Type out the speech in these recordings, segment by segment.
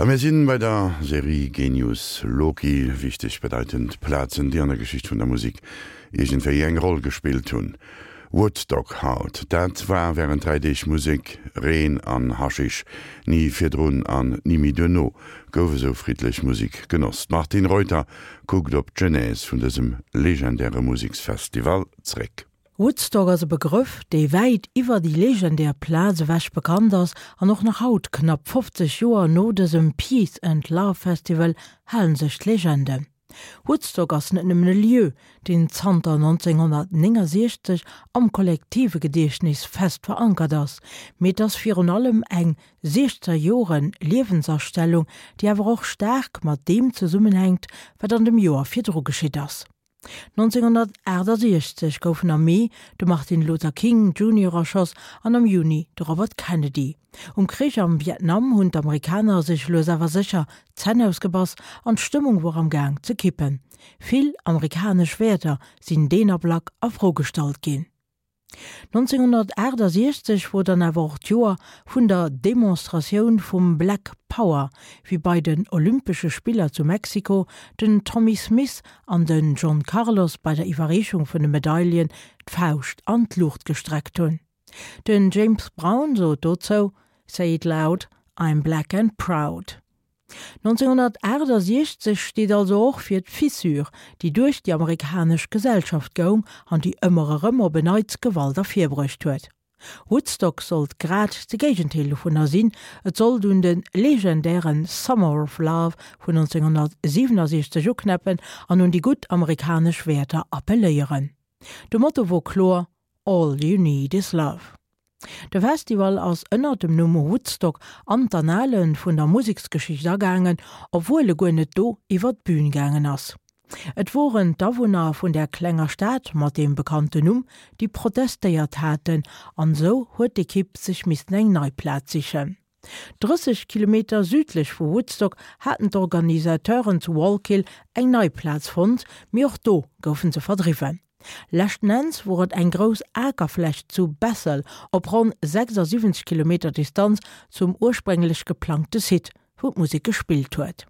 A mir sinn bei der Serie Genius Loci, wichteg bedeitend Plazen, déi an der Geschicht vun der Musik iergendwéi eng Roll gespillt hunn. Woodstock haut, dat war wärend 3 Deeg Musek, Reen an Haschisch. Ni virdrun an ni méi duerno gouf esou friddlech Musek genoss. D'Martine Reuter kuckt op d'Genèse vun dësem legendäre Museksfestival zréck. Woodstock ass e Begrëff, dee wäit iwwer déi legendär Plaz ewech bekannt ass an och nach haut, knapp 50 Joer no dësem Peace and Love Festival, halen sech d'Legenden. Woodstock ass net nëmmen e Lieu, deen zanter 1969 am kollektive Gediechtnes fest verankert ass, mee et ass virun allem eng siechzer Jore Liewensastellung, déi awer och staark mat deem zesummenhänkt, wat an dem Joer virdru geschitt ass. 1968 goufen am Mee de Martin Luther King Junior erschoss an am Juni de Robert Kennedy. Um Krich am Vietnam hunn d'Amerikaner sech lues awer sécher d'Zänn ausgebass an d'Stëmmung wor am Gaang ze kippen. Vill amerikanesch Wäerter sinn deen Ablack a Fro gestallt ginn. 1968 wor dann awer och d'Joer vun der Demonstratioun vum Black Power, wéi bei den Olympesche Spiller zu Mexiko den Tommie Smith an den John Carlos bei der Iwwerreechung vun de Medaillen d'Fauscht an d'Luucht gestreckt hunn. Den James Brown sot dozou, Say it loud, I'm black and proud. 1968 steet also och fir d'Fissure, déi duerch déi amerikanesch Gesellschaft goung an déi ëmmer erëm op en Neits Gewalt ervirbruecht huet. Woodstock sollt grad de Géigendeel dovunner sinn, et sollt un de legendäre Summer of Love vun 1967 uknäppen an un déi gutt amerikanesch Wäerter appelléieren. De Motto wor kloer, All you need is love. De Festival ass ënnert dem Numm Woodstock an d'Annale vun der Museksgeschicht agaangen, obwuel e guer net do iwwer d'Bün gaangen ass. Et woren d'Awunner vun där klenger Stad mat deem bekannten Numm, déi protestéiert haten, an esou huet d'Ekipp sech missten eng nei Plaz sichen. 30 Kilometer südlech vu Woodstock haten d'Organisateuren zu Wallkill eng nei Plaz fonnt, mee och do goufen se verdriwwen. Leschten Enns wor et eng grouss Akerfläch zu Bethel op ronn 76 Kilometer Distanz zum ursprénglech geplangte Site, wou d'Musek gespillt huet.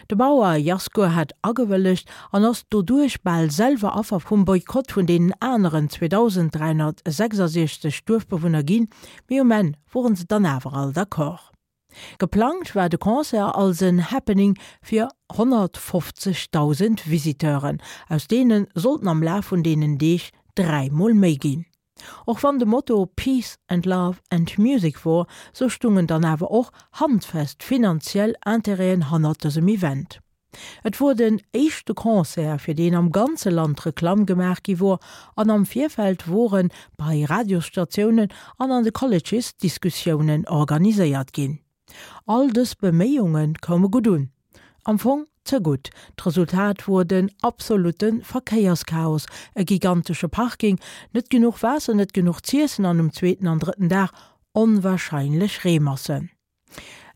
De Bauer Yasgur hat agewëllegt an ass doduerch bal selwer Affer vum Boykott vun deenen aneren 2.366 Duerfbewunner ginn, mee um Enn woren se dann awer all d'accord. Geplangt war de Concert als en Happening fir 150.000 Visiteuren, aus deene sollten am Laf vun deenen Deeg 3 mol méi ginn. Och wann de Motto Peace and Love and Music wor, sou stungen dann awer och handfest finanziell Intérêten hannert dësem Event. Et wor den éischte Concert, fir deen am ganze Land Reklamm gemaach gi wor, an am Virfeld wore bei Radiosstatiounen an an de Colleges Diskussiounen organiséiert ginn. All dës Beméiunge koume gutt un. Am Fong ze gutt. D'Resultat wor den absolutte Verkéierschaos, e gigantesche Parking, net genuch Waasser, net genuch z'iessen an um zweeten an drëtten Dag onwahrscheinlech Reemassen.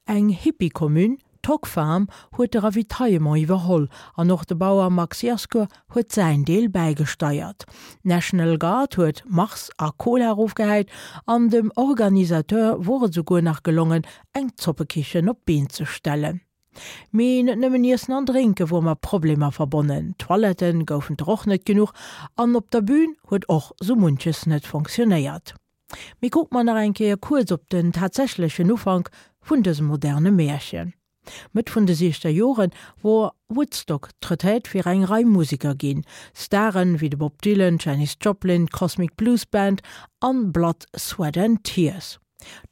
Eng Hippie-Commune, d'Hog Farm, huet de Ravitaillement iwwerholl an och de Bauer Max Yasgur huet säin Deel bäigesteiert. D'National Guard huet Mars a Cola erofgehäit an dem Organisateur wor et esouguer nach gelongen, eng Zoppekichen op d'Been ze stellen. Mee net nëmmen Iessen an Drénke wor mat Problemer verbonnen, Toilette goufen der och net genuch an op der Bün huet och sou munches net fonctionnéiert. Mee kucke mer nach eng Kéier kuerz op den tatsächlechen Ufank vun dësem moderne Märchen. Mëtt vun de siechzer Jore wor Woodstock d'Retraite fir eng Rei Museker ginn. Staren wéi de Bob Dylan, d'Janis Joplin, d'Cosmic Blues Band an Blood, Sweat and Tears.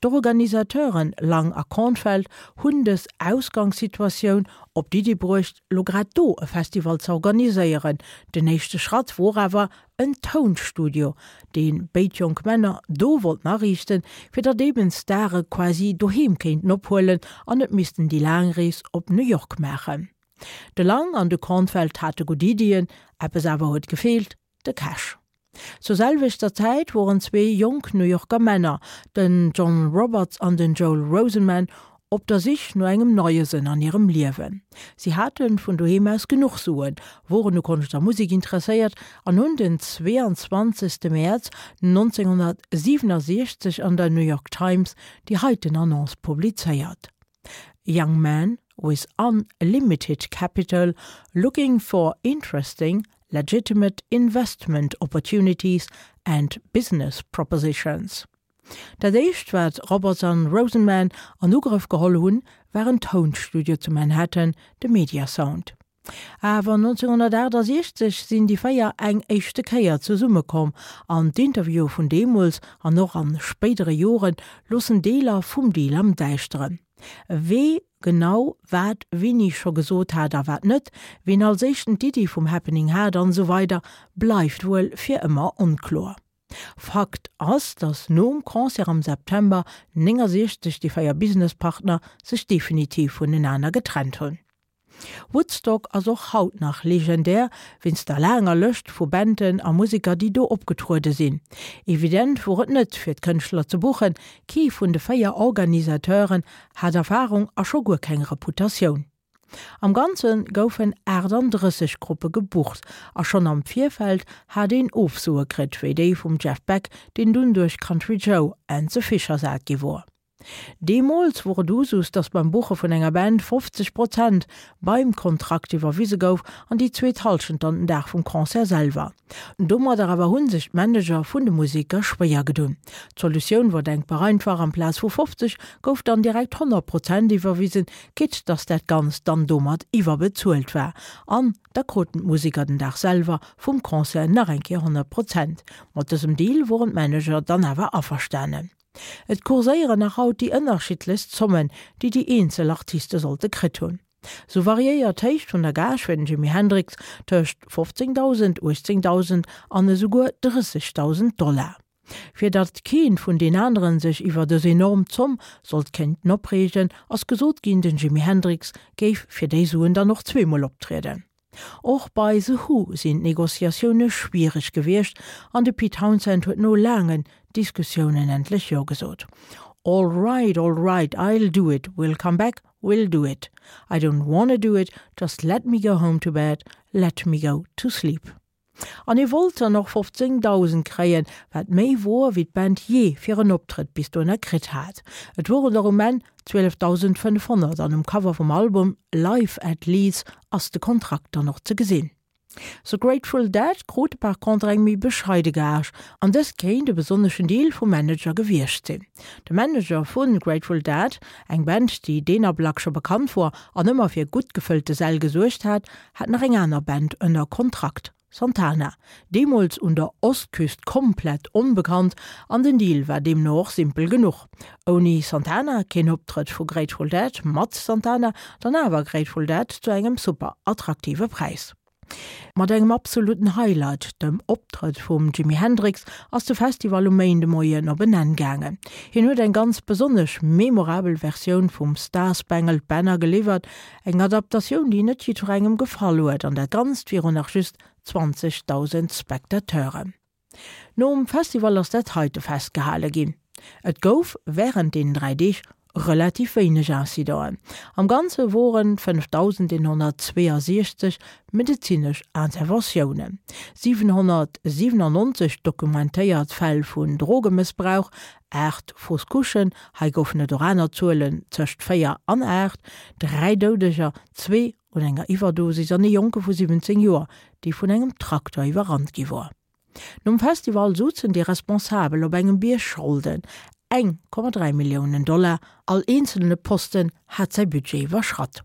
D'Organisateuren Lang a Kornfeld hunn dës Ausgangssituatioun op d'Iddi bruecht, lo grad do e Festival ze organiséieren. Den éischte Schratt wor awer en Tounstudio, dee béid jonk Männer do wollten ariichten, fir datt eben d'Stare quasi doheem kéinten ophuelen an net missten déi laang Rees op New York maachen. De Lang an de Kornfeld hate gutt Iddien, eppes awer huet gefeelt, de Cash. Zur selwechter Zäit woren zwee jonk New Yorker Männer, den John Roberts an den Joel Rosenman, op der Sich no engem neie Sënn an hirem Liewen. Si hate vun doheem aus genuch Suen, woren u Konscht a Musek interesséiert an hunn den 22. Mäerz 1967 an der New York Times déi heiten Annonce publizéiert, Young man. with unlimited capital looking for interesting, legitimate investment opportunities and business propositions. Dat éischt wat Roberts an Rosenman an Ugrëff geholl hunn, war en Tounstudio zu Manhattan, de Media Sound. Awer 1968 sinn déi 4 eng éischte Kéier zesummekomm an d'Interviewe vun deemools an och an spéidere Jore loossen Deeler vum Deal am Däischteren. Wee genau wat wéini scho gesot hat a wat net, ween als éischten d'Iddi vum Happening hat an esou weider bleift wuel fir ëmmer onkloer. Fakt ass, datt nom Concert am September 69 déi 4 Businesspartner sech definitiv vunenaner getrennt hunn. Woodstock ass och haut nach legendär wéinst der laanger Lëscht vu Banden a Museker déi do opgetruede sinn. Evident wor et net fir d'Kënschtler ze buchen, kee vun de 4 Organisateuren hat Erfarung a scho guer keng Reputatioun. Am Ganze goufen 38 Gruppe gebucht a schonn am Virfeld hat een Ofsoe kritt, wéi déi vum Jeff Beck, deen dunn duerch Country Joe and the Fish ersat gi wor. Deemools wor et Usus, datt beim Buche vun enger Band 50 Prozent beim Kontrakt iwwerwise gouf an déi zweet Hallschent dann den Dag vum Concert selwer. Domadder awer hu sech d'Manager vun de Museker schwéier gedunn. D'Solutioun wor denkbar einfach, amplaz vu 50 gouf dann direkt 100 Prozent iwwerwisen, quitte datt dat Ganzt dann domat iwwerbezuelt war. An da kruten d'Museker den Dag selwer vum Concert nach eng Kéier 100 Prozent. Mat dësem Deal woren d'Manager dann awer averstanen. Et kurséieren nach haut déi ënnerschiddlechst Zommen, déi déi eenzel Artiste sollte kritt hunn. Sou variéiert d'Héicht vun der Gage fir den Jimi Hendrix tëscht 15.000, 18.000 an esouguer 30.000 Dollar. Fir datt keen vun den aneren sech iwwer dës enorm Zomm sollt kéinten opreegen, ass gesot ginn, den Jimi Hendrix géif fir déi Suen dann och zweemol optrieden. Och bei The Who sinn d'Negociatioune schwiereg gewiescht an de Pete Townshend huet no laangen Diskussiounen endlech Jo gesot. All right, all right, I'll do it, we'll come back, we'll do it. I don't wanna do it, just let me go home to bed, let me go to sleep. An hie wollt dann och 15.000 kréien, wat méi wor wéi d'Band jee fir en Optrëtt bis dohinner kritt hat. Et woren der um Enn 12.500 an um Cover vum Album Live at Leeds ass de Kontrakt dann och ze gesinn. The Grateful Dead krute par contre eng méi bescheide Gage an dëst kéint e besonneschen Deal vum Manager gewiescht sinn. De Manager vu Grateful Dead, eng Band déi deen Ablack scho bekannt wor an ëmmer fir gutt gefëllte Säll gesuergt hat, hat nach eng aner Band ënner Kontrakt, Santana, deemools un der Ostküst komplett onbekannt, an den Deal war deemno och simpel genuch, Ouni Santana keen Optrëtt vu Grateful Dead, mat Santana dann awer Grateful Dead zu engem super attraktive Präis. Mat engem absoluten Highlight, dem Optrëtt vum Jimi Hendrix, ass de Festival um Méindemoien op en Enn gaangen. Hien huet eng ganz besonnesch memorabel Versioun vum Star Spangled Banner geliwwert, Eng Adaptatioun, déi net jiddwerengem gefall huet, an dat Ganzt virun nach just 20.000 Spectateuren. Nom Festival ass dat heite festgehale ginn, Et gouf wärend deenen 3 Deeg relativ wéineg Incidenten. Am Ganze woren 5.162 medezinesch Interventiounen, 797 dokumentéiert Fäll vun Drogemëssbrauch, 8 Fausse Couchen, hei goufen et och aner Zuelen tëscht 4 an 8, 3 Doudeger, zwee un enger Iwwerdosis an ee Jonke vu 17 Joer, dee vun engem Trakter iwwerrannt gi wor. Nom Festival souzen déi Responsabel op engem Bierg Scholden, 1,3 Milliounen Dollar, all eenzelne Posten hat säi Budget iwwerschratt.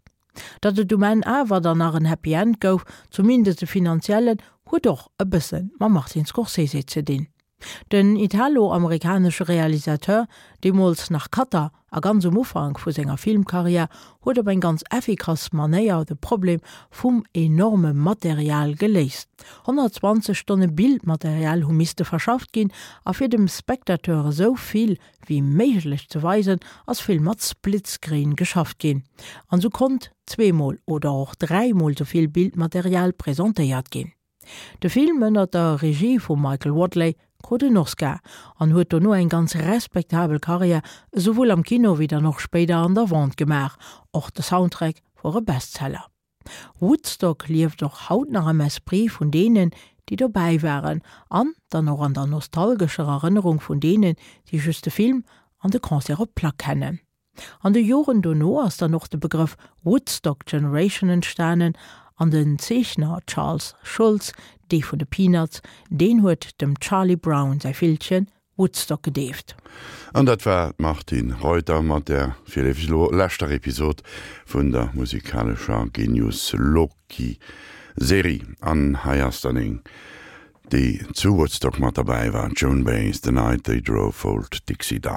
Datt et um Enn awer dann nach en Happy End gouf, zumindest e finanziellen, huet och e bësse mam Martin Scorsese ze dinn. Den italo-amerikanesche Realisateur, deemools nach Cutter a ganz um Ufank vu senger Filmkarriär, huet op eng ganz effikass Manéier de Problem vum enorme Material geléist. 120 Stonne Bildmaterial hu misste verschafft ginn, a fir dem Spectateur esou vill wéi méiglech ze weisen, ass vill mat Splitscreen geschafft ginn, an esou konnt zweemol oder och dräimol esou vill Bildmaterial presentéiert ginn. De Film ënner der Regie vum Michael Wadleigh krut en Oscar an huet dono eng ganz respektabel Karriär esouwuel am Kino wéi dann och spéider an der Vente gemaach. Och de Soundtrack wor e Bestseller. Woodstock lieft och haut nach am Esprit vun deenen, déi dobäi waren an dann och an der nostalgescher Erënnerung vun deenen, déi just de Film an de Concert op Plack kennen. An de Joren dono ass dann och de Begrëff Woodstock Generation entstanen an den Zeechner Charles Schulz, dee vun de Peanuts, deen huet dem Charlie Brown säi Villchen Woodstock gedeeft. An dat war d'Martine Reuter mat der virleefeg elo leschter Episod vun der musikalescher Genius Loci Serie. An hei ass dann eng, déi zu Woodstock mat derbäi war, d'Joan Baez, The Night They Drove Old Dixie Down.